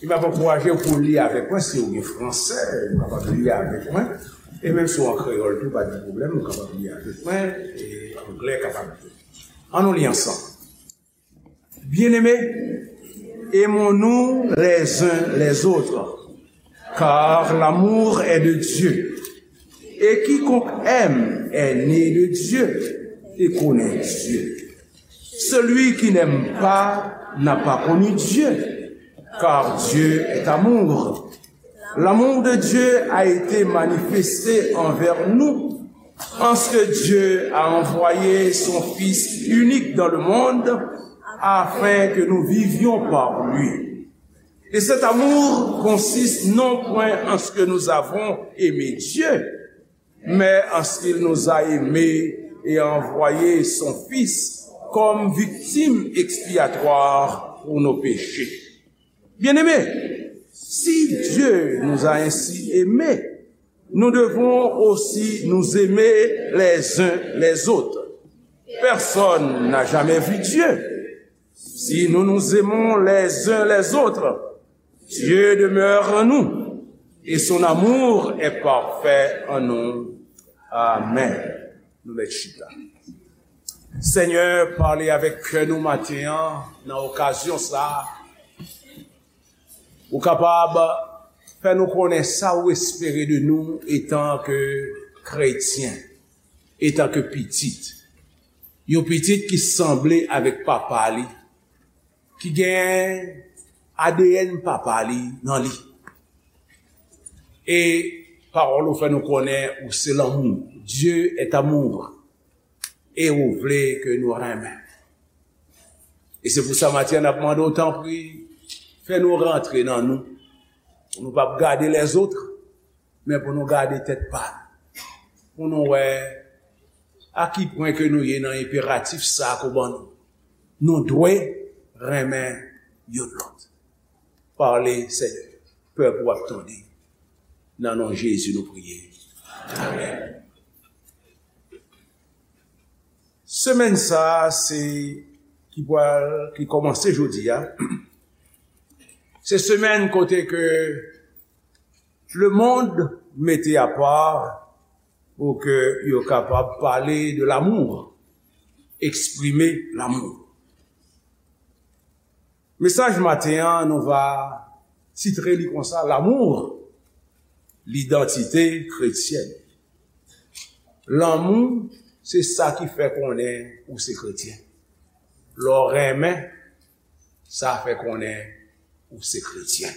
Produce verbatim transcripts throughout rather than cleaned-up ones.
E m ap ankouraje w pou w li avèk mwen, si w gen fransè, ou kapab li avèk mwen. E menm si w an kreyòl tou, pa gen pwoblèm, ou kapab li avèk mwen, e anglè kapab tou. Ann nou li ansanm. Bien-aimés, aimons-nous les uns les autres, car l'amour est de Dieu. Et quiconque aime est né de Dieu et connaît Dieu. Celui qui n'aime pas n'a pas connu Dieu, car Dieu est amour. L'amour de Dieu a été manifesté envers nous, en ce que Dieu a envoyé son Fils unique dans le monde afin que nous vivions par lui. Et cet amour consiste non point en ce que nous avons aimé Dieu, mais en ce qu'il nous a aimés et a envoyé son Fils comme victime expiatoire pour nos péchés. Bien-aimés, si Dieu nous a ainsi aimés, nous devons aussi nous aimer les uns les autres. Personne n'a jamais vu Dieu. Si nous nous aimons les uns les autres, Dieu demeure en nous et son amour est parfait en nous. Amen. Nou mèt chita. Senyè, pale avèk kè nou maten an, nan okazyon sa a, ou kapab fè nou konnen sa ou espere de nou etan ke kretyen, etan ke pitit. Yon pitit ki sanble avèk papa li, ki gen A D N papa li nan li. E pawòl ou fè nou konnen ou se lanmou. Dieu est amour. E ou vle ke nou renmen. E se pou sa maten an n ap mande w, tanpri, fè nou rantre nan nou. Pou nou p ap gade lèzòt, men pou nou gade tèt pa nou. Pou nou wè a ki pwen ke nou ye nan enperatif sa a ke w ban nou. Nou dwe renmen youn lòt. Pale, Senyè. Pèp ou ap tande. Nan non Jezi nou priye. Amen. Semèn sa a, se ki pral, ki kòmanse jodi a, se semèn kote ke lemonn mete apa pou ke yo kapab pale de l'amour, eksprime l'amour. Mesaj maten an, nou va titre li konsa, L'amour, l'identité chrétienne. Lanmou, se sa ki fè konnen ou se kretyen. Lè w renmen, sa fè konnen ou se kretyen.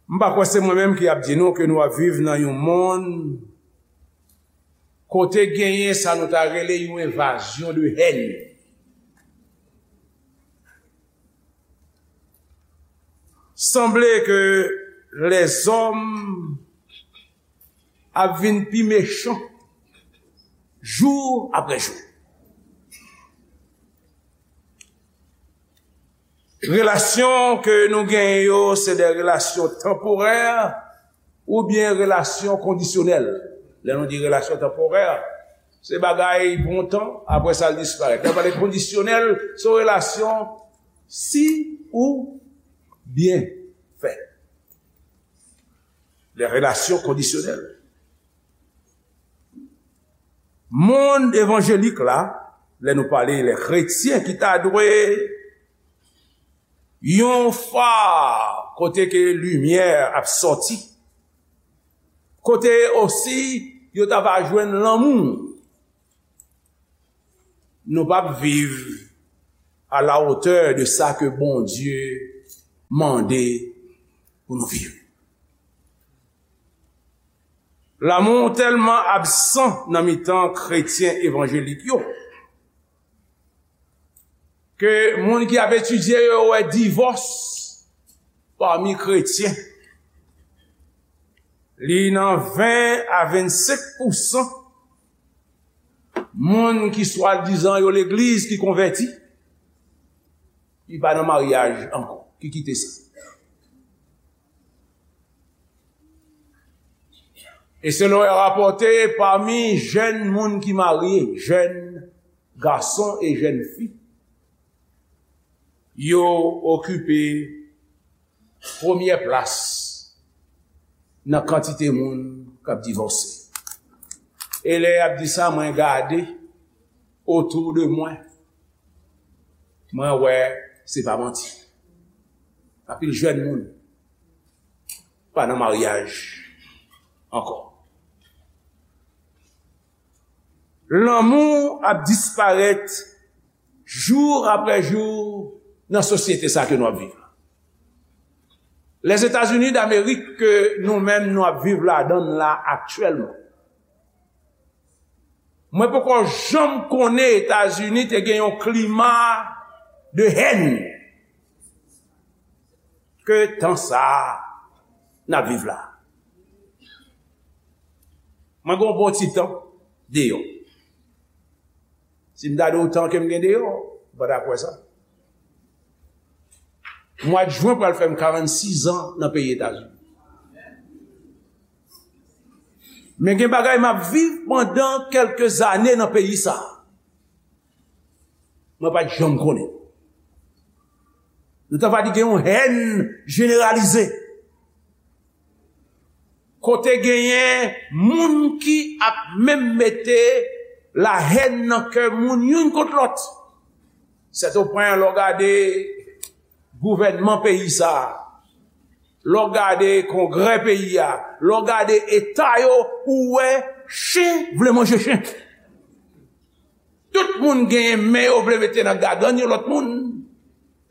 M pa kwè se mwen menm ki ap di nou ke nou ap viv nan yon monn kote genyen sa nou ta rele yon envazyon de hèn. Sanble ke lèzòm ap vin pi mechan jou apre jou. Relasyon ke nou genyen yo, se de relasyon tanporè oubyen relasyon kondisyonèl. Lè nou di relasyon tanporè, se bagay pou yon tan, apre sa l disparèt. Lè n pale kondisyonèl, se yon relasyon si ou byen fè. De relasyon kondisyonèl. Monn evanjelik la, lè nou pale lè kretyen ki ta dwe yon fa kote ke limyè ap sòti, kote osi yo ta va jwenn lanmou. Nou p ap viv à la hauteur de sa ke Bondye mande pou nou viv. Lanmou tèlman absan nan mitan kretyen evanjelik yo, ke moun ki ap etidye yo wè divòs pami kretyen, li nan ven a vennsenk pousan moun ki swadizan yo legliz ki konvèti, ki pa nan maryaj ankò, ki kite sa. E selon rapòte, pami jèn moun ki marye, jèn gason e jèn fi, Yo okipe premyè plas nan kantite moun k ap divòse. E lè y ap di sa, mwen gade otou de mwen, mwen wè se pa manti. Anpil jèn moun pa nan maryaj ankò. Lanmou ap disparèt jou apre jou nan sosyete sa ke nou ap viv la. Lèzetazini Damerik ke nou menm nou ap viv ladan l la aktyèlman. Mwen poko janm konnen Etazini te gen yon klima de hèn ke tan sa a n ap viv la. Mwen gen yon bon ti tan deyò. Si m ta di w tan ke m gen deyò, ou pa ta kwè sa. Mwa jen pral fè m karannsis an nan peyi Etazini. Men gen bagay m ap viv pandan kèlke zane nan peyi sa a. Mwen pa t janm konnen. Nou ta va di gen yon hèn jeneralize. Kote genyen moun ki ap menm mete lahèn nan kè moun youn kont lòt. Sètopwen, lè w gade gouvènman peyi sa a, lè w gade kongrè peyi a, lè w gade eta yo, ou wè chen vle manje chen. Tout moun genyen men yo vle mete nan gagann yon lòt moun.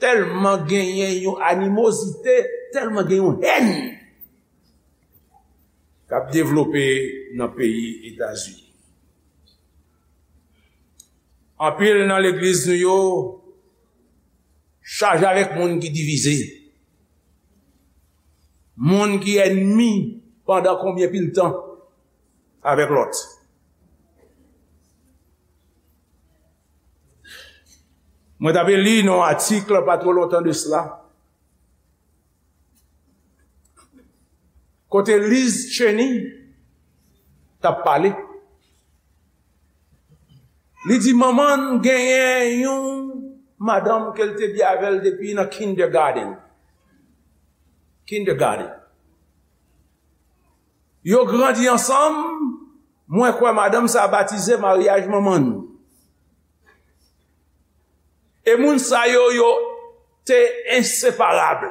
Tèlman genyen yon animozite, tèlman gen yon hèn k ap devlope nan peyi Etazini. Anpil nan legliz nou yo chaje avèk moun ki divize, moun ki ènmi pandan konbyen pil tan avèk lòt. Mwen t ap li nan yon atik pa twò lontan de sila, kote Liz Cheney t ap pale. Li di manman l genyen yon madanm ke l te byen avè l depi nan kindergarten. Kindergarten. Yo grandi ansanm, mwen kwè madanm sa a batize maryaj manman l. E moun sa yo, yo te enseparab.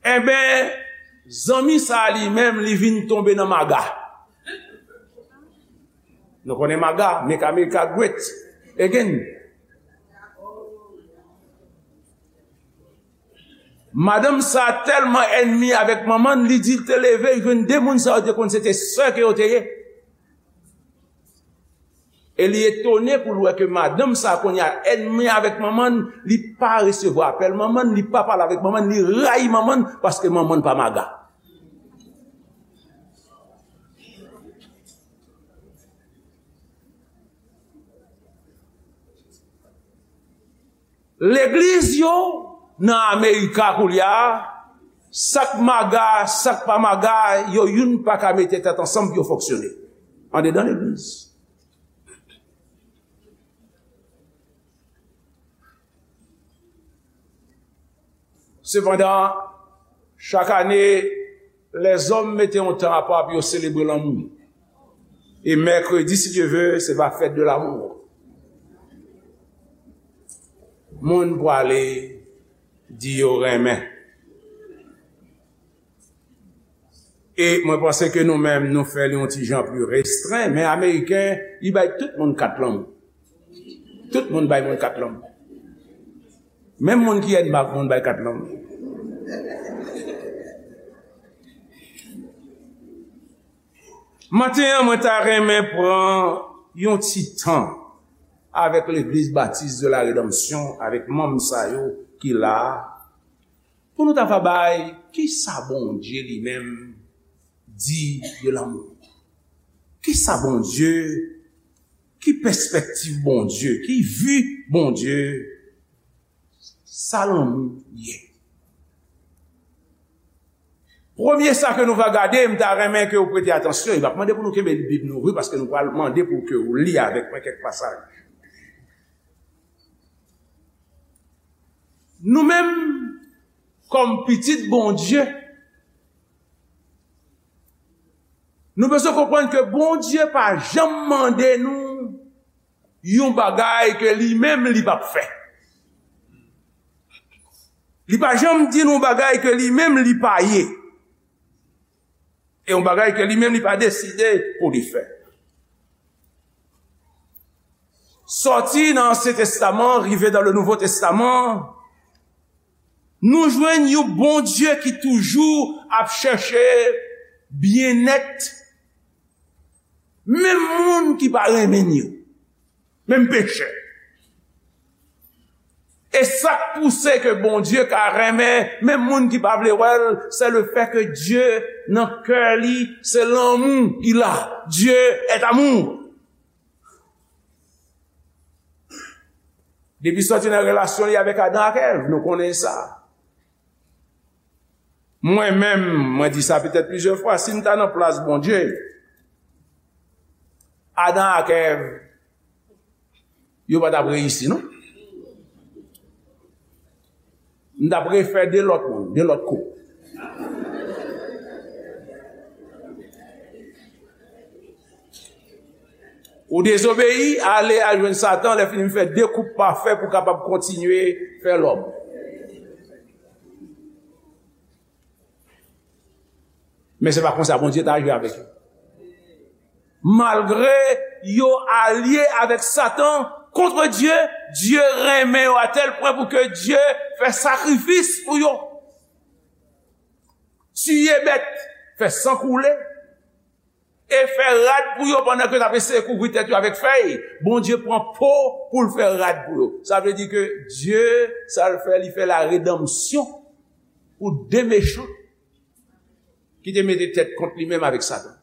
Enben, zanmi sa a li menm, li vin tonbe nan maga. Nou konnen maga, make America great again. Madanm sa a tèlman ènmi avèk manman l, li di l te leve, li jwenn de moun sa yo te konn se te sè ke yo te ye. E li etone pou l wè ke madanm sa a kounye a ènmi avèk manman l, li pa resevwa apèl manman l, li pa pale avèk manman l, li rayi manman l paske manman l pa maga. Legliz yo nan Amerika koulye a, sa k maga, sa k pa maga, yo youn pa ka mete tèt ansanm pou yo fonksyone andedan legliz. Sepandan, chak ane, lèzòm mete yon tan apa pou yo selebre lanmou. E mèkredi, si Dye ve, se va fèt de lanmou. Moun pwale di yo renmen. E mwen panse ke nou menm, nou fè li yon ti jan pli restren, men Ameriken, li bay tout moun kat lanmou. Tout moun bay moun kat lanmou. Menm moun ki ènmi ak moun bay kat lanmou. Maten an, mwen ta renmen pran yon ti tan avèk Legliz Batis de la Redanmsyon, avèk manm sa yo ki la a, pou nou ta va bay kisa Bondye li menm di de lanmou. Kisa Bondye, ki pèspektiv Bondye, ki vi Bondye, sa lanmou ye? Premye sa ke nou va gade, m ta renmen ke w prete atansyon, e m ap mande pou nou kenbe Bib nou ouvri, paske nou pral mande pou ke w li avèk mwen kèk pasaj. Nou menm, kòm pitit Bondye, nou bezwen konprann ke Bondye pa janm mande nou yon bagay ke li menm li p ap fè. Li pa janm di nou bagay ke li menm li pa ye. E yon bagay ke li menm li pa deside pou li fè. Sòti nan Ansyen Testaman, rive dans le Nouveau Testament, nou jwenn yon Bondye ki toujou ap chèche byennèt menm moun ki pa renmen n yo, menm pechè. E sa k pouse ke Bondye ka renmen menm moun ki pa vle wè l, se le fè ke Dye nan kè li, se lanmou ki la. Dieu est amour. Depi sòti nan relasyon li avèk Adan ak Èv, nou konnen sa. Mwen menm, mwen di sa petèt plizyè fwa, si m ta nan plas Bondye, Adan ak Èv, yo pa t ap reyisi, non. M t ap refè de lòt moun, de lòt koup. Ou dezobeyi, ale al jwenn Satan, lè fini m fè de koup pafè pou kapab kontinye fè lòm. Men se pa konsa Bondye t aji avèk yo. Malgre yo alye avèk Satan kont Dye, Dye renmen yo a tèl pwen pou ke Dye fè sakrifis pou yo. Tiye bèt, fè san koule, e fè rad pou yo pandan ke y ap eseye kouvri tèt yo avèk fèy. Bondye pran po pou l fè rad pou yo. Sa vle di ke Dye, sa l fè, li fè la redanmsyon pou de mechan ki te mete tèt kont li menm avèk Satan.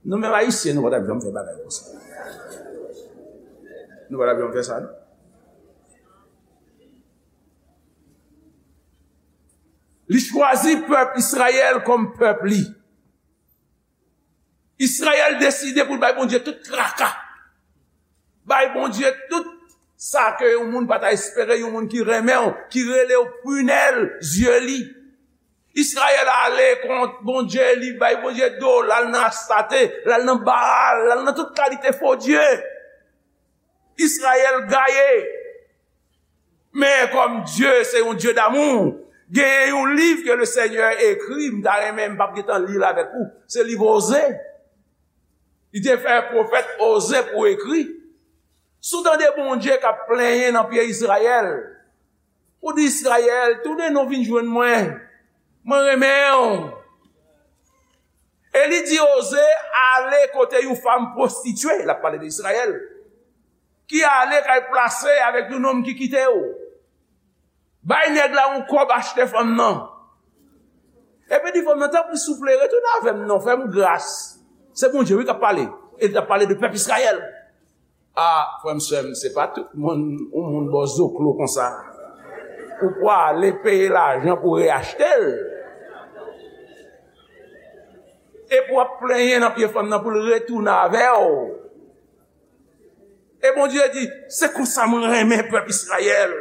Nou menm Ayisyen, nou pa t ap janm fè bagay konsa. Nou pa t ap janm fè sa, non. Li chwazi pèp Izrayèl kòm pèp li. Izrayèl deside pou l bay Bondye tout traka. Bay Bondye tout sa ke yon moun pa ta espere, yon moun ki renmen w, ki rele w prunelle yeux li. Izrayèl ale kont Bondye, li bay Bondye do, l al nan Astate, l al nan Baal, l al nan tout kalite fo dye. Izrayèl gaye. Men kòm Dye se yon Dye damou, genyen yon liv ke le Senyè ekri, m ta renmen, m p ap gentan li l avèk ou. Se liv Oze. Li te fè pwofèt Oze pou ekri. Si w tande Bondye k ap plenyen nan pye Izrayèl, ou di, Izrayèl, tounen non vin jwenn mwen. Mwen renmen w. E li di Oze ale kote yon fanm pwostitye, l ap pale de Izrayèl, ki ale kay plase avèk yon nonm ki kite w. Bay nèg la yon kòb achte fanm nan. Epi di fanm nan, tanpri, souple, retounen avè m non, fè m gras. Se Bondye, wi, k ap pale. E li t ap pale de pèp Izrayèl. A, frè m, sè m, se pa tout moun, yon moun ba w zoklo konsa, ou pwale peye lajan pou reyachte l. Epi w ap plenyen nan pye fanm nan pou l retounen avè w. E Bondye di, se konsa mwen renmen pèp Izrayèl.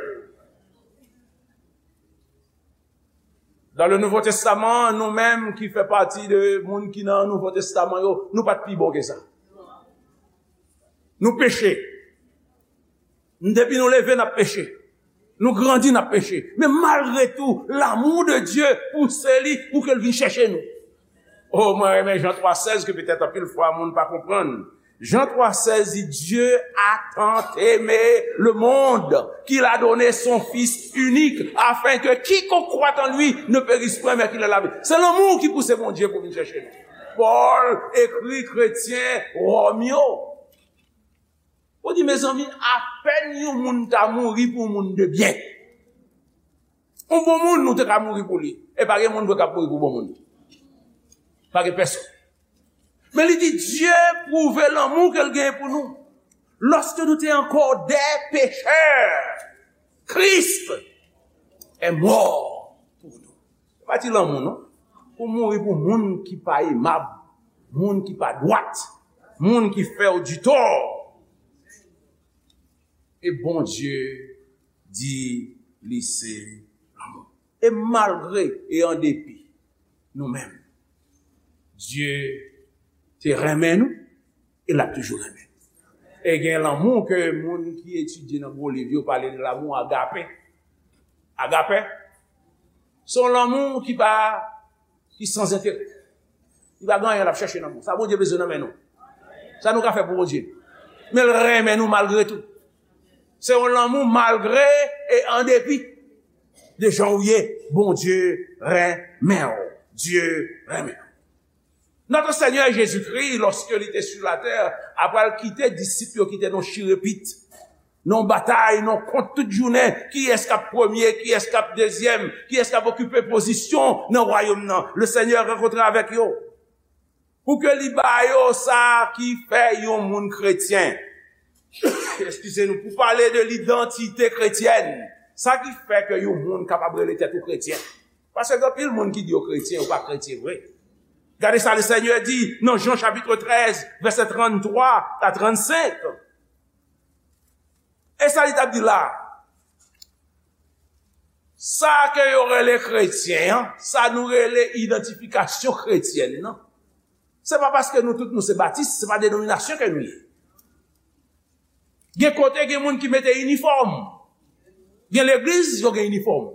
Dans le Nouveau Testament, nou menm ki fè pati de moun ki nan Nouvo Testaman yo, nou pa t pi bon ke sa. Nou peche. Depi nou leve, n ap peche. Nou grandi, n ap peche. Men malgre tou, l'amour de Dieu pouse li pou ke l vin chèche nou. O, mwen renmen Jan twa sèz ke petèt anpil fwa moun pa konprann. Jan twa sèz di, Dieu a tant aimé le monde qu'il a donné son Fils unique, afin que quiconque croit en lui ne périsse point, mais qu'il ait la vie. Se lanmou ki pouse Bondye pou vin chèche nou. Pòl ekri kretyen Wòm yo. Ou di, mezanmi, apèn yon moun ta mouri pou yon moun de byen. Yon bon moun, nou te ka mouri pou li. E pa gen moun vre k ap mouri pou bon moun. Pa gen pèsonn. Men li di, Dye pwouve lanmou ke l genyen pou nou. Lorsque nous étions encore des pécheurs, Christ est mort pour nous. Se pa ti lanmou, non. Pou mouri pou moun ki pa emab, moun ki pa dwat, moun ki fè w ditò. E Bondye di, li se lanmou. E malgre e an depi nou menm, Dye te renmen nou e l ap toujou renmen nou. E gen lanmou ke moun ki etidye nan gwo liv yo pale de lanmou agape. Agape, se yon lanmou ki pa, ki san enterè. Li pa gen anyen l ap chèche nan nou. Sa Bondye bezwen nan men nou. Sa nou ka fè pou Bondye. Men l renmen nou malgre tou. Se yon lanmou malgre e an depi de jan ou ye, Bondye renmen w. Dye renmen w. Notre Seigneur Jésus-Christ, lorsque il était sur la terre, apre l kite disip yo ki te nan chirepit, nan batay, nan kont tout jounen, kiyès k ap premye, kiyès k ap dezyèm, kiyès k ap okipe pozisyon nan wayòm nan. Le Seigneur rankontre avèk yo. Pou ke li ba yo sa ki fè yon moun kretyen. Eskize nou, pou pale de lidantite kretyèn. Sa ki fè ke yon moun kapab rele tèt ou kretyen. Paske gen anpil moun ki di yo kretyen, yo pa kretyen vre. Gade sa le Seigneur di nan Jan chapitre treize, vèsè tranntrwa a trannsenk. E sa li t ap di la? Sa ke yo rele kretyen an, sa nou rele idantifikasyon kretyèn nan, se pa paske nou tout nou se batis, se pa denominasyon ke nou ye. Gen kote, gen moun ki mete inifòm. Gen legliz, yo gen inifòm.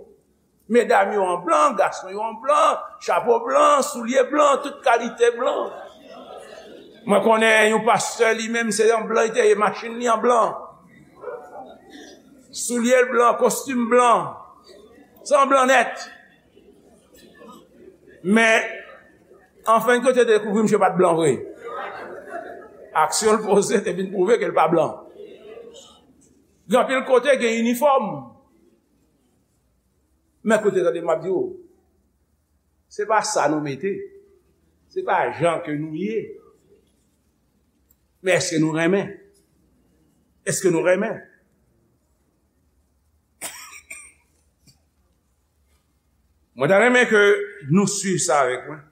Medam yo an blan, gason yo an blan, chapo blan, soulye blan, tout kalite blan. Mwen konnen yon pastè, li menm, se an blan li te ye, machin li an blan. Soulye l blan, kostim blan. Se an blan nèt. Men, anfen, kote dekouvri misye pa t blan vre. Aksyon l poze te vin pwouve ke l pa blan. Gen anpil kote gen inifòm. Men koute, tande m ap di w, se pa sa nou mete. Se pa jan ke nou ye. Men èske nou renmen? Èske nou renmen? Mwen ta renmen ke nou swiv sa avèk mwen.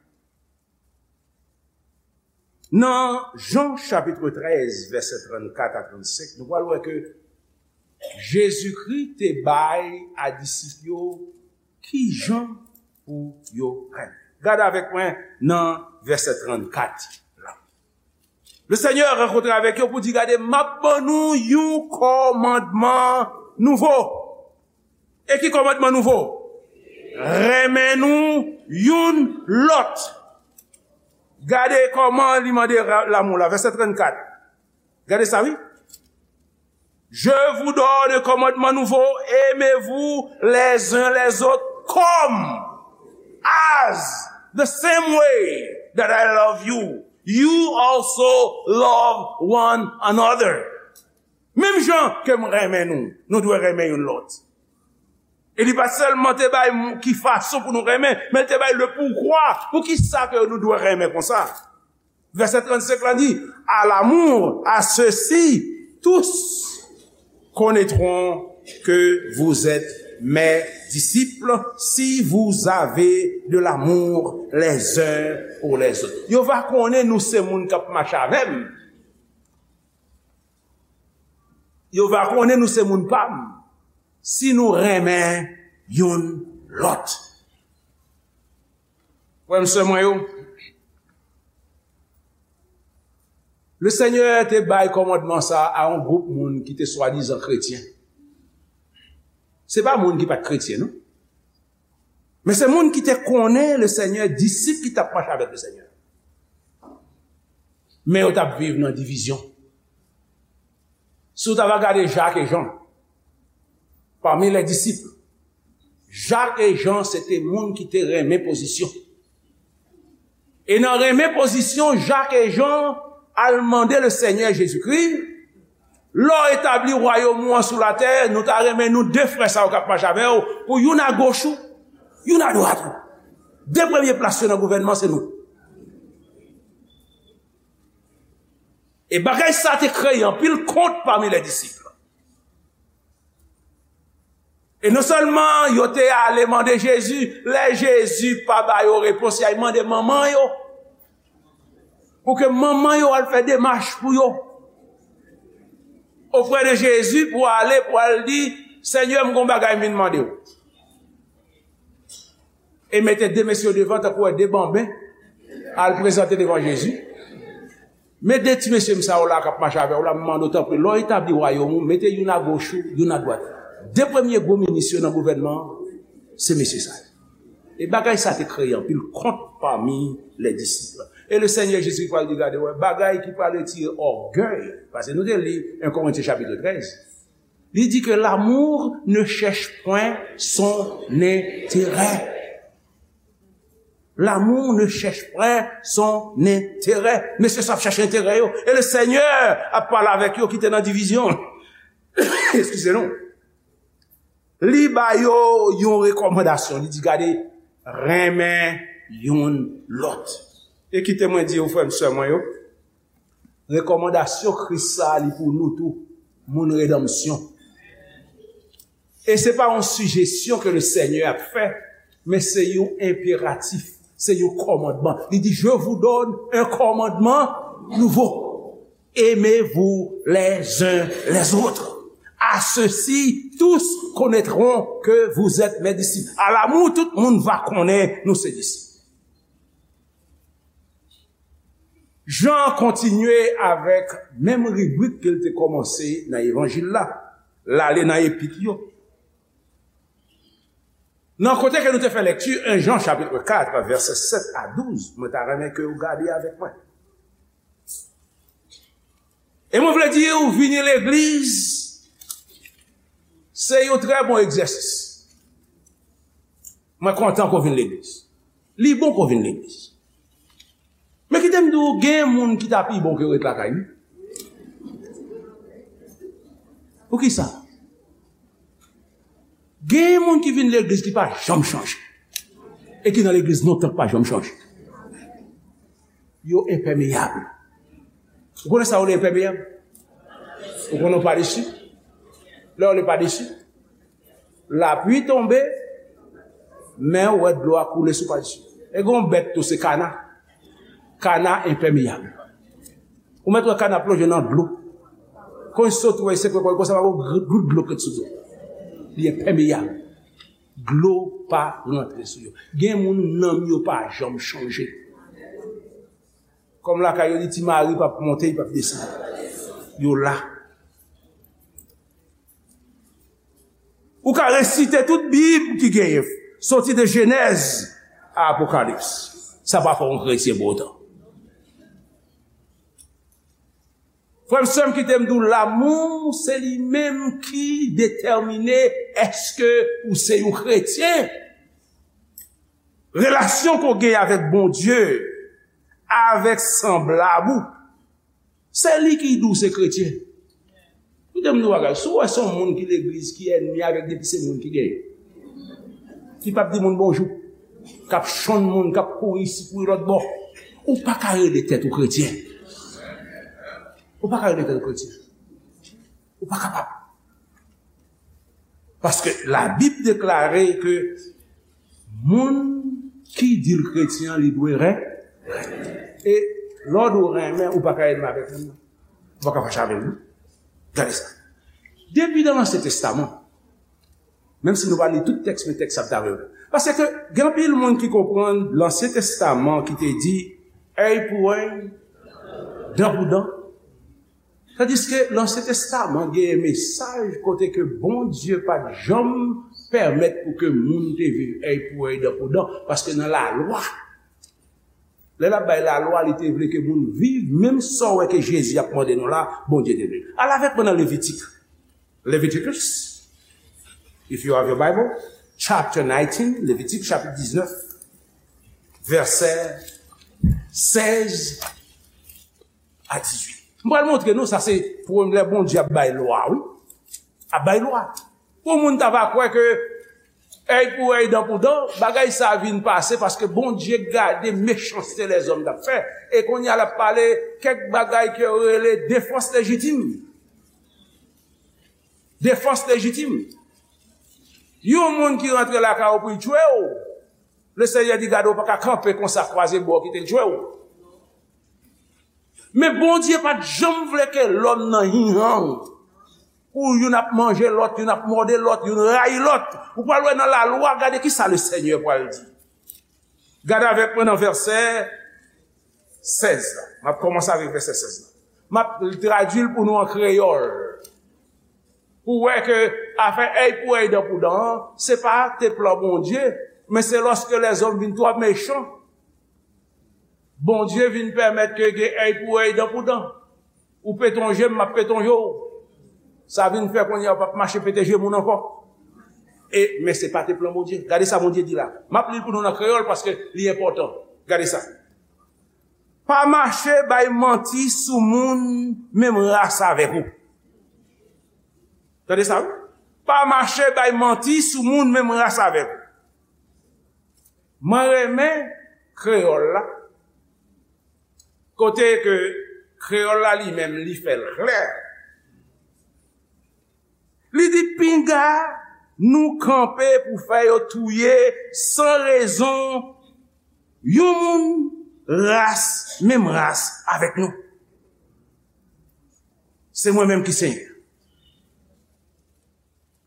Nan Jan chapitre treize, vèsè trannkat a trannsenk, nou pral wè ke Jezikri te bay a disip yo ki jan pou yo renmen. Gade avèk mwen nan vèsè trannkat la. Le Seigneur rankontre avèk yo pou di, gade, m ap ban nou yon kòmandman nouvo. E ki kòmandman nouvo? Renmen nou youn lòt. Gade kòman li mande ra-, lanmou la, vèsè trannkat. Gade sa, wi. Je vous donne un commandement nouveau, aimez-vous les uns les autres comme, as, the same way that I love you, you also love one another. Menm jan ke m renmen nou, nou dwe renmen youn lòt. E li pa sèlman te bay m-, ki fason pou nou renmen, men l te bay le pourquoi. Pou ki sa ke nou dwe renmen konsa? Vèsè trannsenk la di, à l'amour, à ceux-ci, tous connaîtront que vous êtes mes disciples, si vous avez de l'amour les uns pour les autres. Yo va konnen nou se moun k ap mache avè m. Yo va konnen nou se moun pa m si nou renmen youn lòt. Frè m, sè mwen yo, le Senyè te bay kòmandman sa a yon gwoup moun ki te swadizan kretyen. Se pa moun ki pa t kretyen, non. Men se moun ki te konnen le Senyè, disip ki t ap mache avèk le Senyè. Men yo t ap viv nan divizyon. Si w ta va gade Jak e Jan, pami lè disip, Jak e Jan se te moun ki te renmen pozisyon. E nan renmen pozisyon, Jak e Jan al mande le Senyè Jezikri, lè w etabli wayòm ou an sou latè, nou ta renmen nou de frè sa yo k ap mache avè w, pou youn agoch ou, youn adwat ou. De premye plas yo nan gouvènman se nou. E bagay sa te kreye anpil kont pami lè disip. E non sèlman yo te ale mande Jezi, lè Jezi pa ba yo repons, y al mande manman yo, pou ke manman yo al fè demach pou yo oprè de Jezi, pou ale, pou al di, Senyè, m gon bagay m vin mande w. E mete de mesye yo devan, tankou wè de banben, al prezante devan Jezi. Met de ti mesye m sa yo la k ap mache avè w la, m mande w tanpri, lè w etabli wayòm ou, mete youn agoch ou, youn adwat. De premye gwo minis yo nan gouvènman an, se mesye sa yo. E bagay sa te kreye anpil kont pami lè disip. E le Senyè Jezi pral di, gade, wè, bagay ki pral retire ògèy, paske nou te li en Korentyen chapit trèz, li di ke l'amour ne cherche point son intérêt. L'amour ne cherche point son intérêt. Mesye sa ap chache enterè yo. E le Senyè ap pale avèk yo ki te nan divizyon. Eskize nou. Li ba yo yon rekòmandasyon. Li di, gade, renmen youn lòt. E kite mwen di w, frè m, sè mwen yo, rekòmandasyon Kris sa a, li pou nou tou, moun redanmsyon. E se pa yon sijesyon ke le Senyè ap fè, men se yon enperatif, se yon kòmandman. Li di, je vous donne un commandement nouveau. Aimez-vous les uns les autres. À ceci, tous connaîtront que vous êtes mes disciples. À l'amour, tout moun va konnen nou se disip. Jan kontinye avèk menm ribrik ke l te kòmanse nan evanjil la, l ale nan epit yo. Nan kote ke nou te fè lekti, en Jan chapit kat, vèsè sèt a douz, mwen ta renmen ke w gade avèk mwen. E mwen vle di w, vini legliz, se yon trè bon egzèsis. Mwen kontan ke w vin legliz. Li bon ke w vin legliz. Men kite m di w, gen moun ki ta pi bon ke yo ret lakay li. Poukisa? Gen moun ki vin legliz ki pa janm chanje. E ki nan legliz lontan ki pa janm chanje. Yo enpèmeyab. Ou konnen sa yo rele enpèmeyab? Ou konnen w pa desi? Lè w rele pa desi, lapli tonbe, men w wè dlo a koule sou pa desi. E gen yon bèt tou, se kana. Kana enpèmeyab. Ou mèt wè kana plonje nan dlo. Kon sot wè se kwe konsa, pa gen gout dlo k ret sou dlo. Li enpèmeyab. Dlo pa rantre sou yo. Gen moun nanm yo pa janm chanje. Kòm lakay yo di ti mari p ap monte, li p ap desann. Yo la. Ou ka resite tout Bib ki genyen, soti de Jenèz a Apokalips. Sa pa fè w yon kretyen pou otan. Frè m, sè m, kite m di w, lamou, se li menm ki detèmine èske ou se yon kretyen. Relasyon ke w gen avèk Bondye, avèk sanblab ou, se li ki di w se kretyen. Kite m di w bagay, si w wè se yon moun ki legliz ki ènmi avèk depi se moun ki genyen, ki p ap di moun bonjou, k ap chonn moun, k ap kouri isi, kouri lòt bò, ou pa ka rele tèt ou kretyen. Ou pa ka rele tèt ou kretyen. Ou pa kapab. Paske Labib deklare ke moun ki di l kretyen an, li dwe ren-, renmen. E lè w di w renmen, ou pa ka ènmi avèk moun nan. Ou pa ka fache avè l, non. Gade sa. Depi nan Ansyen Testaman, menm si nou pa li tout tèks, men tèks sa ap travay. Paske gen anpil moun ki konprann Lansyen Testaman ki te di, èy pou èy, dan pou dan. Tandiske Lansyen Testaman genyen mesaj kote ke Bondye pa t janm pèmèt pou ke moun te viv èy pou èy, dan pou dan, paske nan lalwa, lè l ap bay lalwa, li te vle ke moun viv, menm sa w wè ke Jezi ap mande nou la, Bondye te vle. Al avèk mwen nan Levitik. Leviticus, if you have your Bible, chapter nineteen, Levitik chapit diznèf, vèsè sèz a dizuit. M pral montre nou, sa se premye lè Bondye ap bay lwa, wi. Ap bay lwa. Pou moun ta va kwè ke èy pou èy, dan pou dan, bagay sa vin pase paske Bondye gade mechanste lèzòm t ap fè. E kounye a l ap pale kèk bagay ke yo rele defans lejitim. Defans lejitim. Yon moun ki rantre lakay ou pou l tchwe w, Lesenyè di, gade, ou pa ka kanpe konsa, kwaze bò, kite l tchwe w. Men Bondye pa t janm vle ke lòm nan hinhan w. Ou youn ap manje lòt, youn ap mòde lòt, youn rayi lòt. Ou pral wè nan lalwa, gade ki sa Lesenyè pral di. Gade avèk mwen nan vèsè sèz la. M ap kòmanse avèk vèsè sèz la. M ap tradui l pou nou an kreyòl. Pou wè ke afè èy pou èy, dan pou dan an, se pa te plan Bondye, men se lòske lèzòm vin twò mechan, Bondye vin pèmèt ke gen èy pou èy, dan pou dan. Ou pete yon je m, m ap pete yon je w. Sa vin fè kounye a ou p ap mache pete je moun ankò. E, men se pa te plan Bondye. Gade sa Bondye di la. M ap li l pou nou nan kreyòl paske li enpòtan. Gade sa. Pa mache bay manti sou moun menm ras avèk ou. Tande sa, wi. Pa mache bay manti sou moun menm ras avèk ou. Mwen renmen kreyòl la. Kote ke kreyòl la li menm, li fè l klè. Li di, pinga nou kanpe pou fè yo touye san rezon yon moun ras, menm ras avèk nou. Se mwen menm ki Senyè.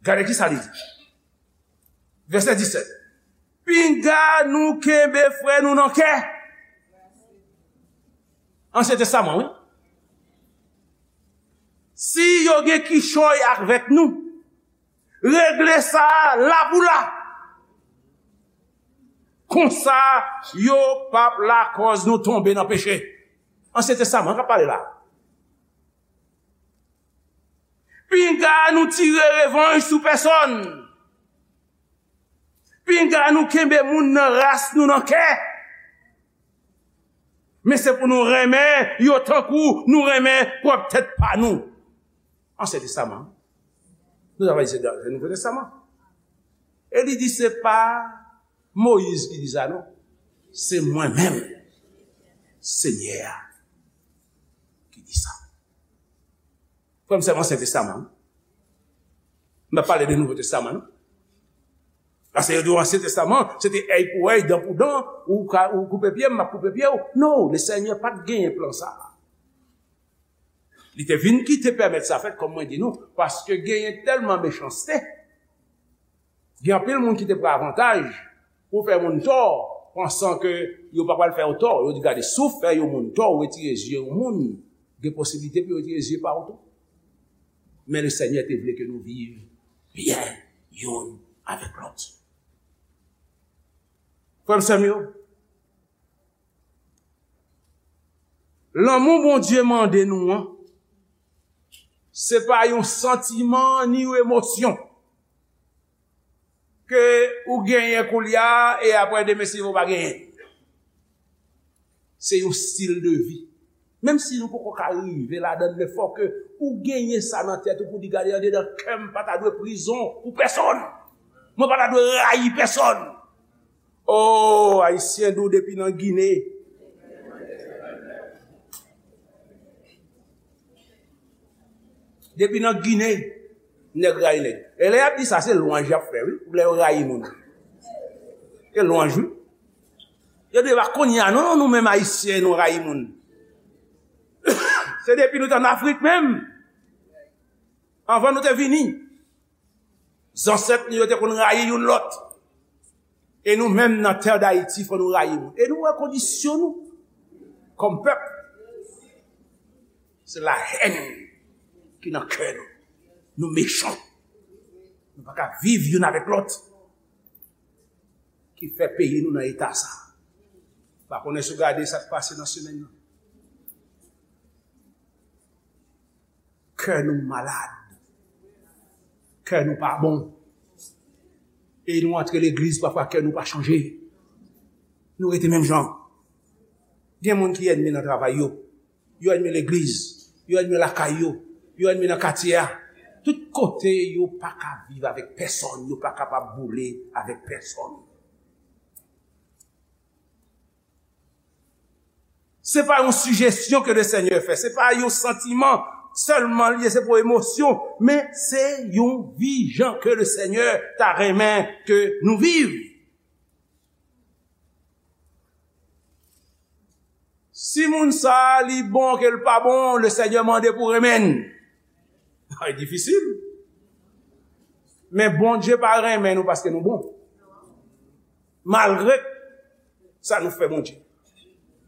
Gade ki sa li di. Vèsè disèt. Pinga nou kenbe frè nou nan kè. Ansyen Testaman, wi. Si yo gen kichòy avèk nou, regle sa la pou la. Konsa, yo p ap lakòz nou tonbe nan peche. Ansyen Testaman k ap pale la. Pinga nou tire revanj sou pèsòn. Pinga nou kenbe moun nan ras nou nan kè. Men se pou nou renmen yo tankou nou renmen pwòp tèt pa nou. Ansyen Testaman. Nou ta va di se Nouvo Testaman. E li di se pa Moyiz ki di sa, non. Se mwen menm, Senyè a, ki di sa. Frè m, sè m, Ansyen Testaman, non. M pa pale de Nouvo Testaman, non. Paske yo di w Ansyen Testaman, se te èy pou èy, dan pou dan, ou ka, ou koupe pye m, m ap koupe pye w. Non, Lesenyè pa t genyen plan sa a. Li te vin kite pèmèt sa fèt, kòm mwen di nou, paske genyen tèlman mechanste. Gen anpil moun ki te pran avantaj pou fè moun tò, pansan ke yo pa pral fè yo tò. Yo di, gade, si w fè yon moun tò, ou retire zye yon moun, gen posiblite pou yo retire zye pa w tou. Men Lesenyè te vle ke nou viv byen youn avèk lòt. Frè m, sè m yo, lanmou Bondye mande nou an, se pa yon santiman ni yon emosyon ke ou genyen koulye a e apre demen si ou pa genyen. Se yon stil de vi. Menm si nou poko ka rive ladan l, men fò ke ou genyen sa nan tèt ou pou di, gade, andedan kè m pa ta dwe prizon pou pèsòn. Mwen pa ta dwe rayi pèsòn. Oh, Ayisyen dou depi nan Gine. Depi nan Gine, nèg rayi nèg. E lè y ap di sa, se lwanj y ap fè, wi, lè yo rayi moun. Se lwanj, wi. Yo di, e pa kounye a, non, non, nou menm Ayisyen, nou rayi moun. Se depi nou t ann Afrik menm. Anvan nou te vini. Zansèt nou yo te konn rayi youn lòt. E nou menm nan tè Dayiti, fò nou rayi moun. E nou wè kondisyon nou kòm pèp. Se lahèn ki nan kè nou. Nou mechan. Nou pa ka viv youn avèk lòt. Ki fè peyi nou nan eta sa. Pa konnen si w gade sa k pase nan semèn nan. Kè nou malad. Kè nou pa bon. E nou antre legliz, pafwa kè nou pa chanje. Nou rete menm jan. Gen moun ki ènmi nan travay yo. Yo ènmi legliz. Yo ènmi lakay yo. Yo ènmi nan katye a. Tout kote yo pa ka viv avèk pèsonn. Yo pa kapab boule avèk pèsonn. Se pa yon sijesyon ke Lesenyè fè, se pa yon santiman sèlman li ye, se pa yon emosyon, men se yon vi jan ke Lesenyè ta renmen ke nou viv. Si moun sa a li bon ke l pa bon, Lesenyè mande pou renmen l. Bagay difisil. Men Bondye pa renmen nou paske nou bon. Malgre sa nou fè Bondye,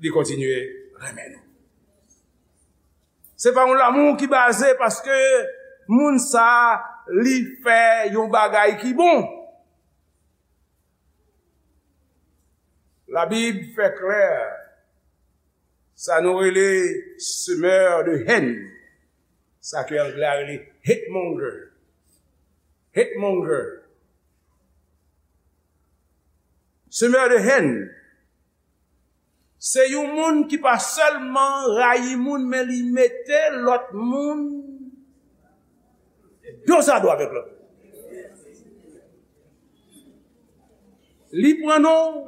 li kontinye renmen nou. Se pa yon lanmou ki baze paske moun sa li fè yon bagay ki bon. Labib fè klè sa nou rele semeur de haine, sa ke anglè a rele hate monger. Hate monger. Semeur de haine, se yon moun ki pa sèlman rayi moun, men li mete lòt moun dozado avèk lòt moun. Li pran non w,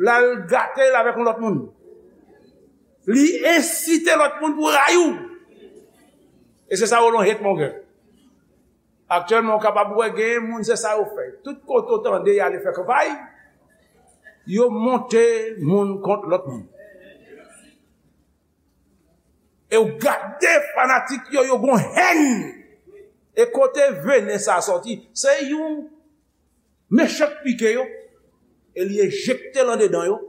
l al gate l avèk yon lòt moun. Li ensite lòt moun pou rayi w. E se sa yo rele yon hate monger. Aktyèlman, ou kapab wè genyen moun, se sa yo fè. Tout kote w tande y ale fè kanpay, yo monte moun kont lòt moun. E w gade fanatik yo, yo gon hèn. E kote venen sa sòti? Se yon mechan k pike yo, e li enjekte l andedan yo,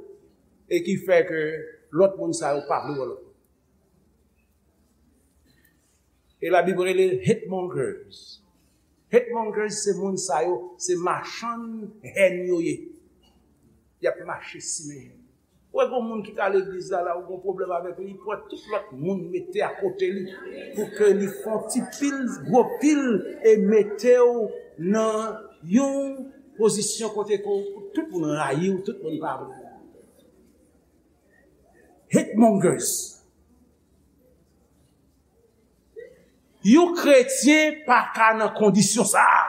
e ki fè ke lòt moun sa yo pa vle wè lòt moun. E Labib rele hate mongers. Hate mongers se moun sa yo, se machann hèn yo ye. Y ap mache simen hèn. Ou wè gon moun ki ka legliz la, la ou gon pwoblèm avèk li, li pran tout lòt moun mete akote li pou ke li fè yon ti pil, gwo pil, e mete w nan yon pozisyon kote ke tout moun rayi w, tout moun pa vle w. Hate mongers. Yon kretyen pa ka nan kondisyon sa a.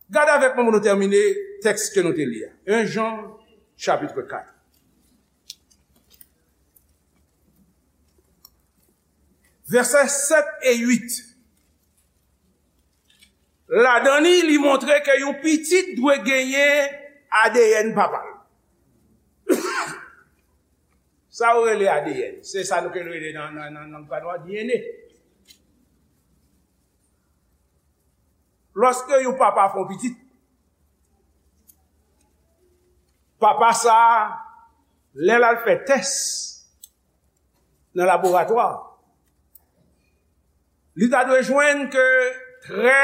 Gade avèk mwen pou nou tèmine tèks ke nou te li a. En Jan, chapit kat. Vèsè sèt e uit. Ladan li, li montre ke yon pitit dwe genyen A D N papa l. Sa yo rele A D N. Se sa nou ke rele nan, nan, nan, nan lang pa nou a, D N A. Lòske yon papa fè yon pitit, papa sa a, lè l al fè tès nan laboratwa, li ta dwe jwenn ke trè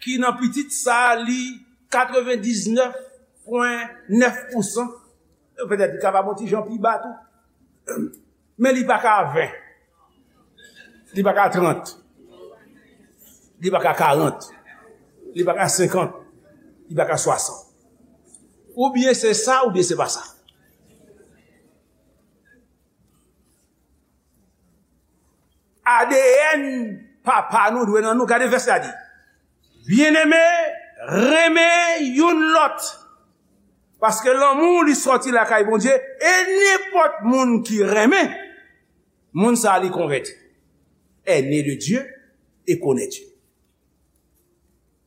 ki nan pitit sa a, li katrevendiznèf pwen nèf pousan, petèt li kapab yon ti jan pi ba tou. Men li pa ka ven. Li pa ka trant. Li pa ka karant. Li pa ka senkant. Li pa ka swasant. Oubyen se sa, oubyen se pa sa. A D N papa nou dwe nan nou. Gade vèsè a di, Byeneme, renmen youn lòt, paske lanmou li sòti lakay Bondye, e nenpòt moun ki renmen, moun sa a li konvèti, est né de Dieu et connaît Dieu.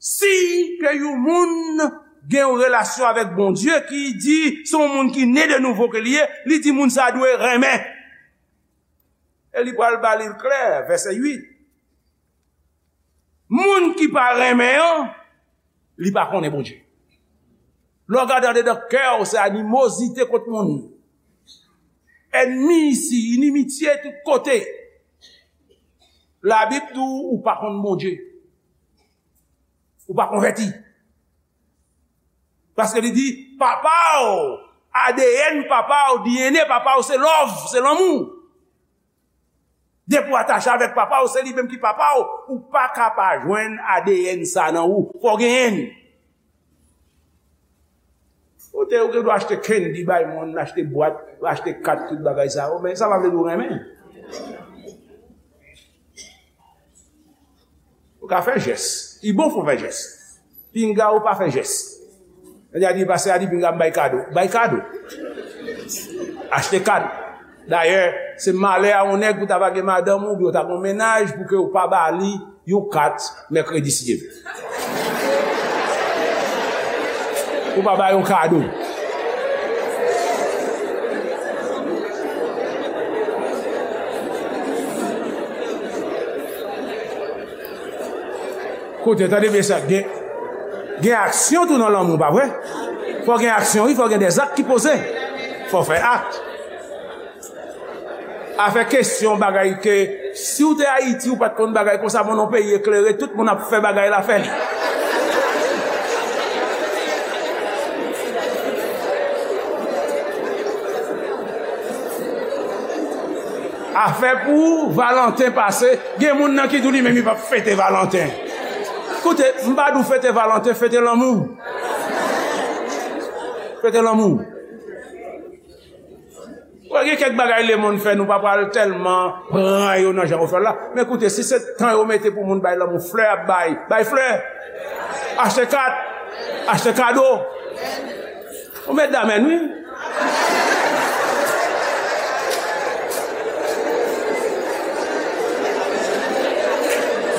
Si ke yon moun gen yon relasyon avèk Bondye ki di se yon moun ki ne de nouvo ke li ye, li di moun sa a dwe renmen. E li pral ba li l klè, vèsè uit. Moun ki pa renmen an, li pa konnen Bondye. Lè w gade andedan kè w, se animozite kont moun. Ènmi isi, inimitye tout kote. Labib di w, ou pa konn Bondye. Ou pa konvèti. Paske li di, papa w, A D N papa w, D N A papa w, se love, se lanmou. Depi w atache avèk papa w, se li menm ki papa w, ou pa ka pa jwenn A D N sa nan ou, fò w genyen l. Ou te, ou gen dwa achte candy bay moun, achte bwat, achte kat, tout bagay sa yo, men sa pa vle di w renmen. Ou ka fè jès. Li bon pou w fè jès. Pinga ou pa fè jès. Lè a di, pastè a di, pinga m bay kado. Bay kado. Achte kado. Dayè, se malè a yon nèg pou ta pa gen madanm ou, oubyen w ta gen yon mennaj, pou ke w pa ba li yon kat mèkredi, si Dye vle. Ou pa ba yon kado. Koute, tande byen sa, gen, gen aksyon tou nan lanmou, pa vre? Fò gen aksyon, wi, fò gen dèzak ki poze. Fò fè ak. Afè kesyon bagay ke, si w te Ayiti, ou pa t konn bagay konsa, bon, nan peyi eklere, tout moun ap fè bagay la, fè li. Afè pou Valanten pase, gen moun nan ki di w li menm li p ap fete Valanten. Koute, m pa di w fete Valanten, fete lanmou. Fete lanmou. Wè, gen kèk bagay lemonn fè, nou pa pral tèlman pran yo nan jan yo fè l la. Men koute, si se tan yo mete pou moun bay lanmou, flè ap bay, bay flè. Achte kat, achte kado. Ou met damèn, wi.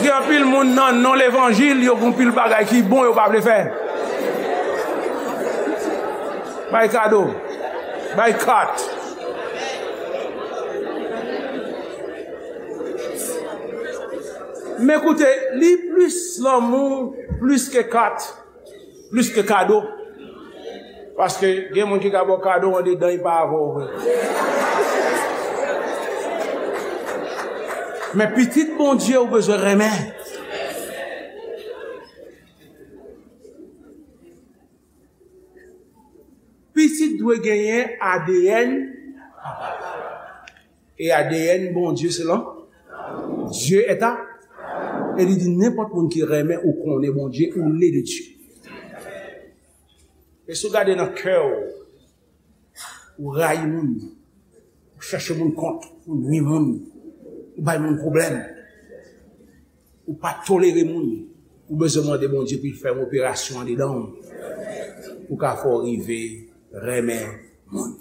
Gen anpil moun nan non levanjil, yo gen anpil bagay ki bon, yo pa vle fè. Bay kado. Bay kat. Men koute, li plis lanmou, plis ke kat, plis ke kado. Paske gen moun ki ka ba w kado, andedan, li pa avè w vre. Men pitit Bondye, ou bezwen renmen. Pitit dwe genyen A D N papa. E A D N Bondye se lan. Dieu est à. E li di nenpòt moun ki renmen ou konnen Bondye, ou né de Dieu. E si w gade nan kè w, ou rayi moun, ou chèche moun kont, ou nwi moun, ou bay moun pwoblèm, ou pa tolere moun, ou bezwen mande Bondye pou l fè yon operasyon andedan w, pou ka fè w rive renmen moun.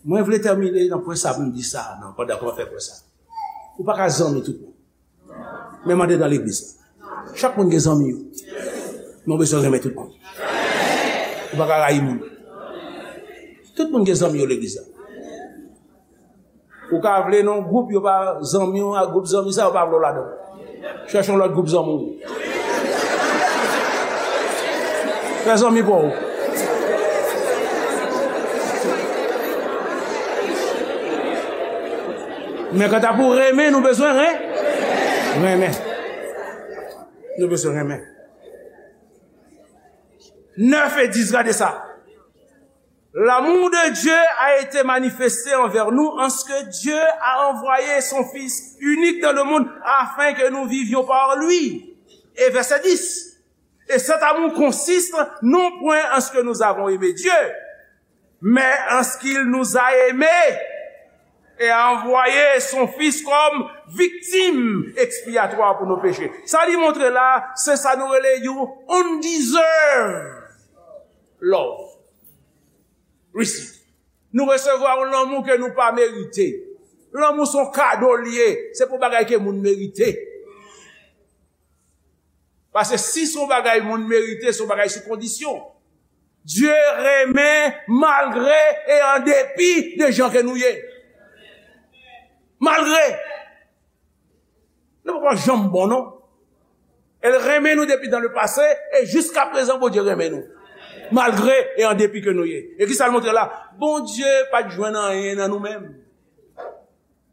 Mwen vle tèmine nan pwen sa pou m di sa, nan, pandan ke mwen fè pwen sa. Ou pa ka zanmi tout moun. Menm andedan legliz la. Chak moun gen zanmi yo. Men w bezwen renmen tout moun. Ou pa ka rayi moun. Tout moun gen zanmi yo legliz la. Ou ka vle nan gwoup yo pa zanmi w, ak gwoup zanmi sa yo pa vle w ladan. Chèche yon lòt gwoup zanmi w. Fè zanmi pa w. Men kanta pou renmen, nou bezwen ren-, renmen. Nou bezwen renmen. Nèf e dis, gade sa. L'amour de Dieu a été manifesté envers nous en ce que Dieu a envoyé son Fils unique dans le monde afin que nous vivions par lui. Et verset dix. Et cet amour consiste non point en ce que nous avons aimé Dieu, mais en ce qu'il nous a aimés et a envoyé son Fils comme victime expiatoire pour nos péchés. Sa li montre la, se sa nou rele yon undeserved love. Receive. Nou resevwa yon lanmou ke nou pa merite. Lanmou se yon kado l ye, se pou bagay ke moun merite. Paske si se yon bagay moun merite, se yon bagay sou kondisyon. Dye renmen malgre e an depi de jan ke nou ye. Malgre. Nou poko janm bon, non. El renmen nou depi dan le pase, e jiska prezan, Bondye renmen nou. Malgre e an depi ke nou ye. E ki sa l montre la? Bondye pa t jwenn anyen nan nou menm.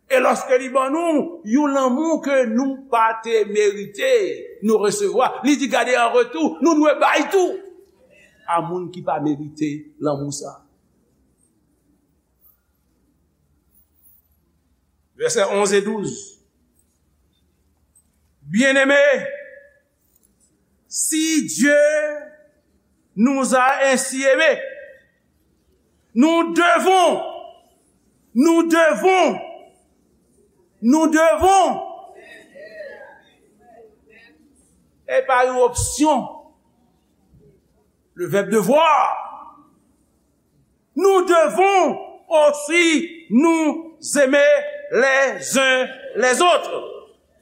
E lòske li ban nou yon lanmou ke nou pa te merite, nou resevwa, li di, gade, an retou, nou dwe bay tou a moun ki pa merite lanmou sa. Vèsè onz e douz. Bien-aimés, si Dieu nous a ainsi aimés, nous devons, nous devons, nous devons, et pas une option, le verbe devoir. Nous devons aussi nous aimer les uns les autres.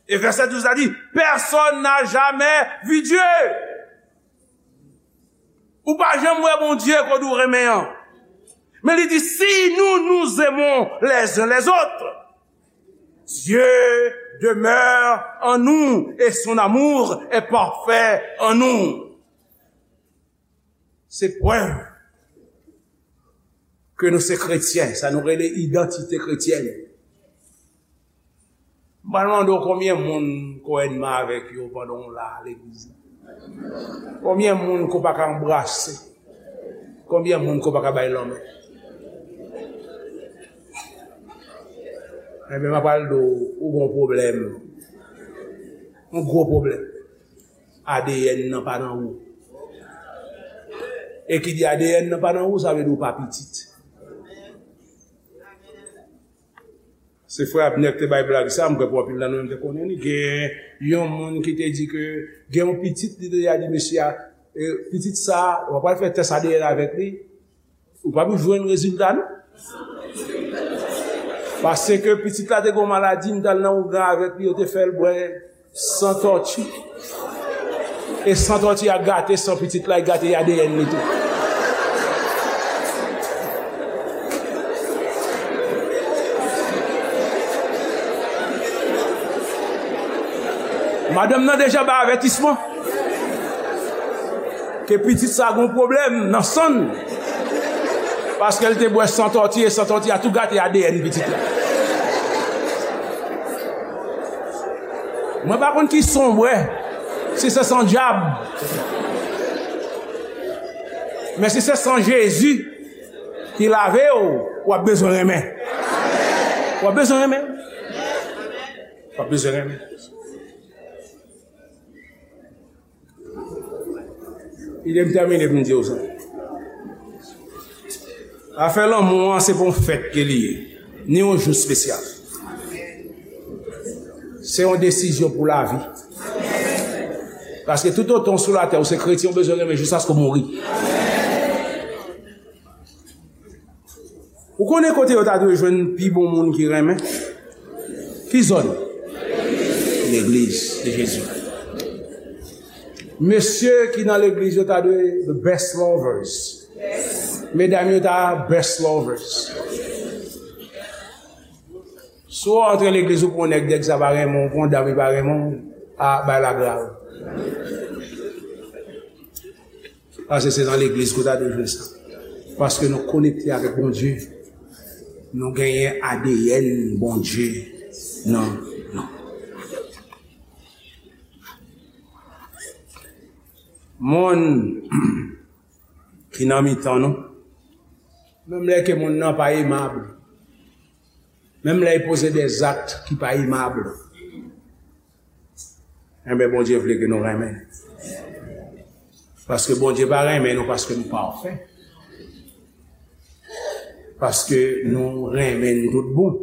E vèsè douz la di, personne n'a jamais vu Dieu. Ou pa janm wè Bondye kote ou renmen an. Men li di, si nous nous aimons les uns les autres, Dieu demeure en nous et son amour est parfait en nous. Se prèv ke nou se kretyen, sa nou rele idantite kretyèn. M pral mande w konbyen moun ke w enmi avèk yo pandan w la legliz la. Konbyen moun ke w pa ka anbrase? Konbyen moun ke w pa ka bay lanmen? Enben, m ap pral di w, ou gen yon pwoblèm. Yon gwo pwoblèm. A D N nan pa nan ou. E ki di A D N nan pa nan ou, sa vle di ou pa pitit. Se frè Abner ki te bay blag sa, m kwè pou anpil nan nou menm te konnen li. Gen yon moun ki te di ke gen yon pitit, li te di mesye a, e, pitit sa, w ap al fè tès A D N avèk li, ou p ap jwenn rezilta, non. Paske pitit la te gen yon maladi, m t al nan ougan avèk li, yo te fè l bwè san tòti. E san tòti a gate san pitit la, e gate A D N li tou. Madanm nan deja bay avètisman ke pitit sa gon pwoblèm nan san l. Paske l te bwè san tòti, e san tòti a tou gate A D N pitit la. Mwen pa konn ki san w bwè, si se san dyab. Men si se san Jezi ki lave w, w ap bezwen renmen. W ap bezwen renmen. W ap bezwen renmen. Kite m tèmine pou m di w sa. Afè lanmou an, se pa yon fèt ke li ye, ni yon jou espesyal. Se yon desizyon pou lavi. Paske toutotan w sou latè, ou se kretyen, ou bezwen renmen jiskaske w mouri. Ou konnen kote yo ta dwe jwenn pi bon moun ki renmen? Ki zòn? Legliz de Jezi. Mesye ki nan legliz yo ta dwe the best lovers. Medam yo ta best lovers. Si w antre legliz, ou pran yon nèg, nèg sa pa renmen w, ou pran yon dam, li pa renmen w, a, bagay la grav. Paske se nan legliz ke w ta dwe jwenn sa. Paske nou konekte avèk Bondye. Nou genyen A D N Bondye nan nou. Moun ki nan mitan nou, menm lè ke moun nan pa emab, menm lè l poze dè zak ki pa emab, enben, Bondye vle ke nou renmen l. Paske Bondye pa renmen nou paske nou pafè. Paske nou renmen l tout bon.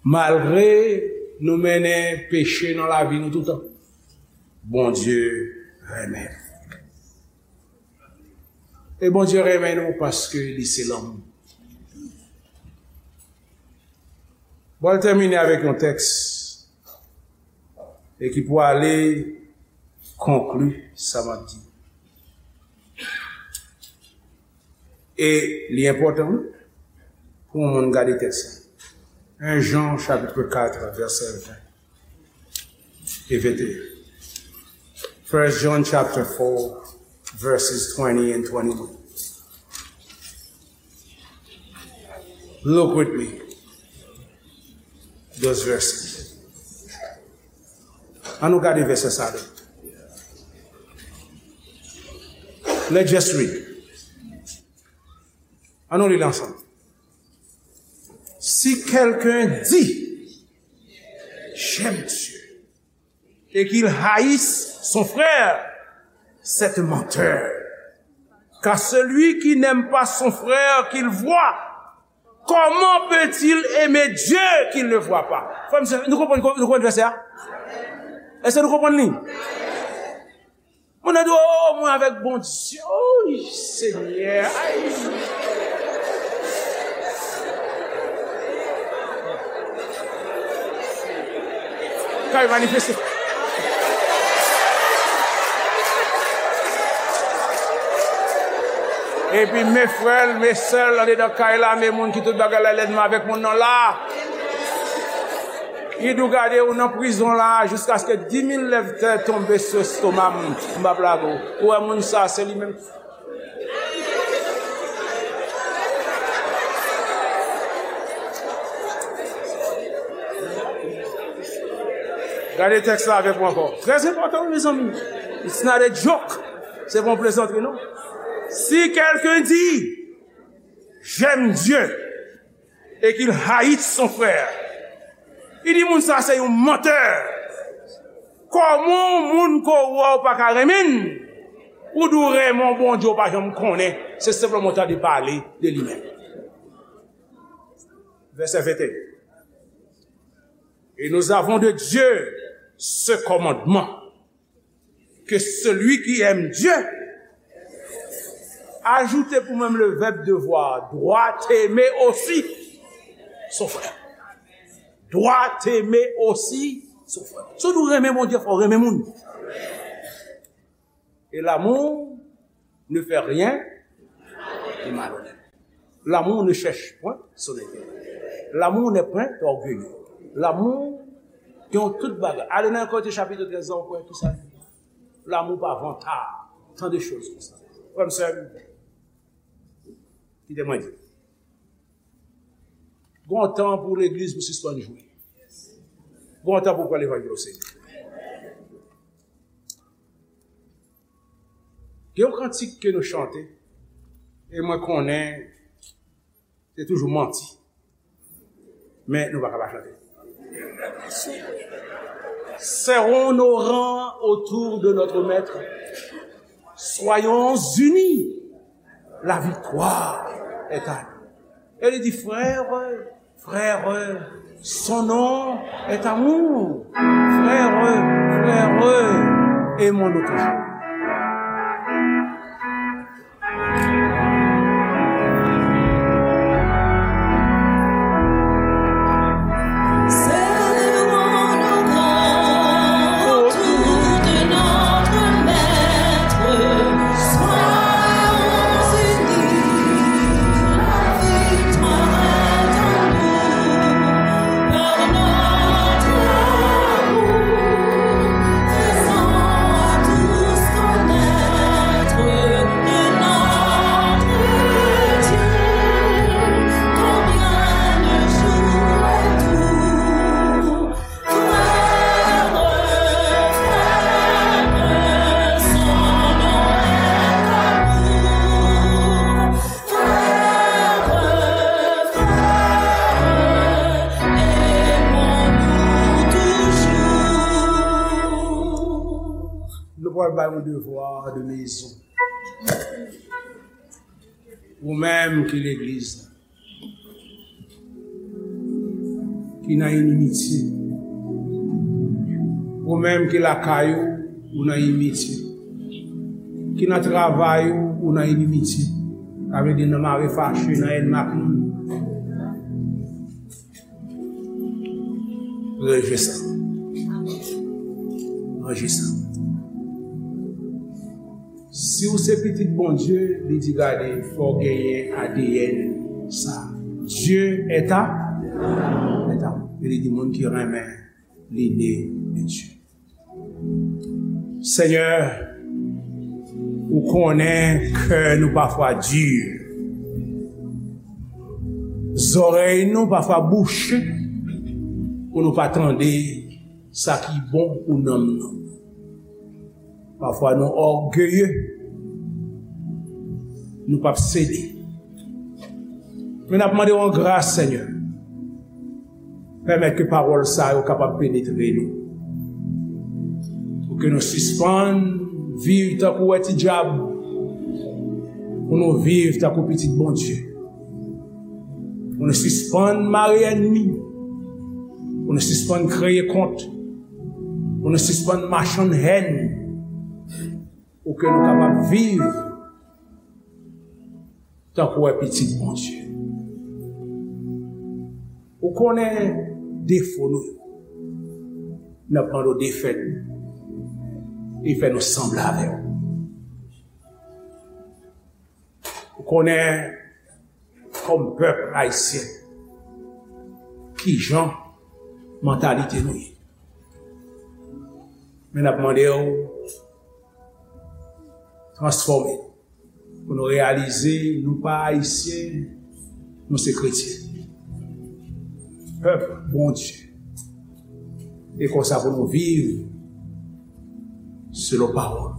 Malgre nou mennen peche nan lavi nou toutan, Bondye renmen nou. E Bondye renmen nou paske li se lanmou. Bon, m pral tèmine avèk yon tèks e ki pou ale konkli sa m ap di. E li enpòtan, wi, pou yon moun gade tèks la. En Jan, chapitre quatre, vèsè ven e venteyen. First John chapter four, verses twenty and twenty-one. Look with me. Those verses. Ann nou gade vèsè sa a. Let's just read. Ann nou li l ansanm. Si quelqu'un dit, j'aime Dieu, et qu'il haïsse son frère, c'est un menteur. Car celui qui n'aime pas son frère qu'il voit, comment peut-il aimer Dieu qu'il ne voit pas? Frè m, sè, nou konprann, nou konprann vèsè a? Èske nou konprann li? Moun nan di, "O, mwen avèk Bondye." Oy, Senyè. Ay. Kay manifeste. Epi men frè l, men sè l, andedan kay la, men moun ki tout bagay la, lènmi avèk moun nan la. Li di w gade ou nan prizon la jiskaske di mil lèv tè tonbe sou estoma m, m p ap lage w. Ou wè moun sa, se li menm. Gade tèks la avèk mwen ankò. Trè enpòtan, mezanmi. It's not a joke. Se pa yon plezantri, non. Si quelqu'un dit, j'aime Dieu, et qu'il haït son frère, li di moun sa se yon mantè. Kòman yon moun ke w wè w pa ka renmen l, ou di w renmen yon Bondye w pa janm konnen, se senpleman w tande pale de li menm. Vèsè venteyen. Et nous avons de Dieu ce commandement, que celui qui aime Dieu, ajoutez pour même le verbe devoir, doit aimer aussi son frère. Doit aimer aussi son frère. Si w renmen Bondye, fò w renmen moun. Et l'amour ne fait rien de malhonnête. L'amour ne cherche point son intérêt. L'amour n'est point orgueilleux. Lanmou gen yon tout bagay. Ale nan Korentyen chapit trèz la, ou kwè ki sa li di. Lanmou pa vantard. Tant de choses konsa. Frè m, sè m, kite mwen di. Gon tan pou legliz pou sispann jwe. Gon tan pou pran levanjil o serye. Gen yon kantik ke nou chante, e mwen konnen se toujou manti. Men nou pa ka pa chante. Serrons nos rangs autour de notre maître. Soyons unis. La victoire est à nous. E li di, frère, frère, son nom est amour. Frère, frère, aimons-nous toujours. Nou pral bay yon devwa de mezon. Ou menm ki legliz la, ki nan inimitye. Ou menm ki lakay ou, ou nan inimitye. Ki nan travay ou, ou nan inimitye. Sa vle di nan mare fache, nan ènmi ak moun. Ranje sa. Ranje sa. Si w se pitit Bondye, li di, gade, fò w genyen A D N sa. Dieu est à, est à. E li di, moun ki renmen, li ne de Dieu. Senyè, ou konnen kè nou pafwa di. Zòrèy nou pafwa bouche pou nou pa tande sa ki bon pou nanm nou. Pafwa nou ògeye, nou p ap sede. Men n ap mande w an gras, Senyè, pèmèt ke pawòl sa yo kapab penetre nou. Pou ke nou sispann viv tankou wè ti dyab, pou nou viv tankou pitit Bondye. Pou nou sispann mare ènmi. Pou nou sispann kreye kont. Pou nou sispann machann hèn. Pou ke nou kapab viv tankou wè pitit Bondye. Ou konnen defo nou yo. N ap mande w defèt nou. E fè nou sanble avè w. Ou konnen, kòm pèp ayisyen, kijan mantalite nou ye. Men n ap mande w transfòme nou pou nou reyalize nou pa Ayisyen, nou se kretyen. Pèp Bondye. E konsa pou nou viv selon pawòl.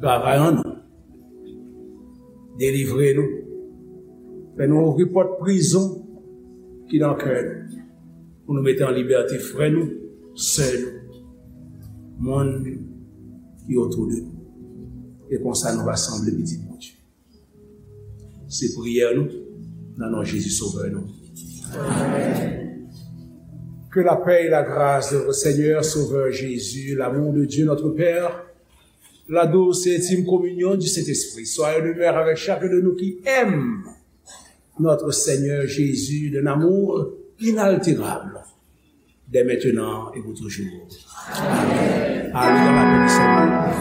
Travay an nou. Delivre nou. Fè nou ouvri pòt prizon ki nan kè nou. Pou nou mete an libète frè nou, sè nou, moun ki otou de nou. E konsa nou va sanble pitit Bondye. Se priyè nou, nan non Jezi Sovè nou. Amen. Que la paix et la grâce de notre Seigneur Sauveur Jésus, l'amour de Dieu notre Père, la douce et intime communion du Saint-Esprit soit et demeure avec chacun de nous qui aime notre Seigneur Jésus d'un amour inaltérable, dès maintenant et pour toujours. Amen. Allez dans la paix du Seigneur.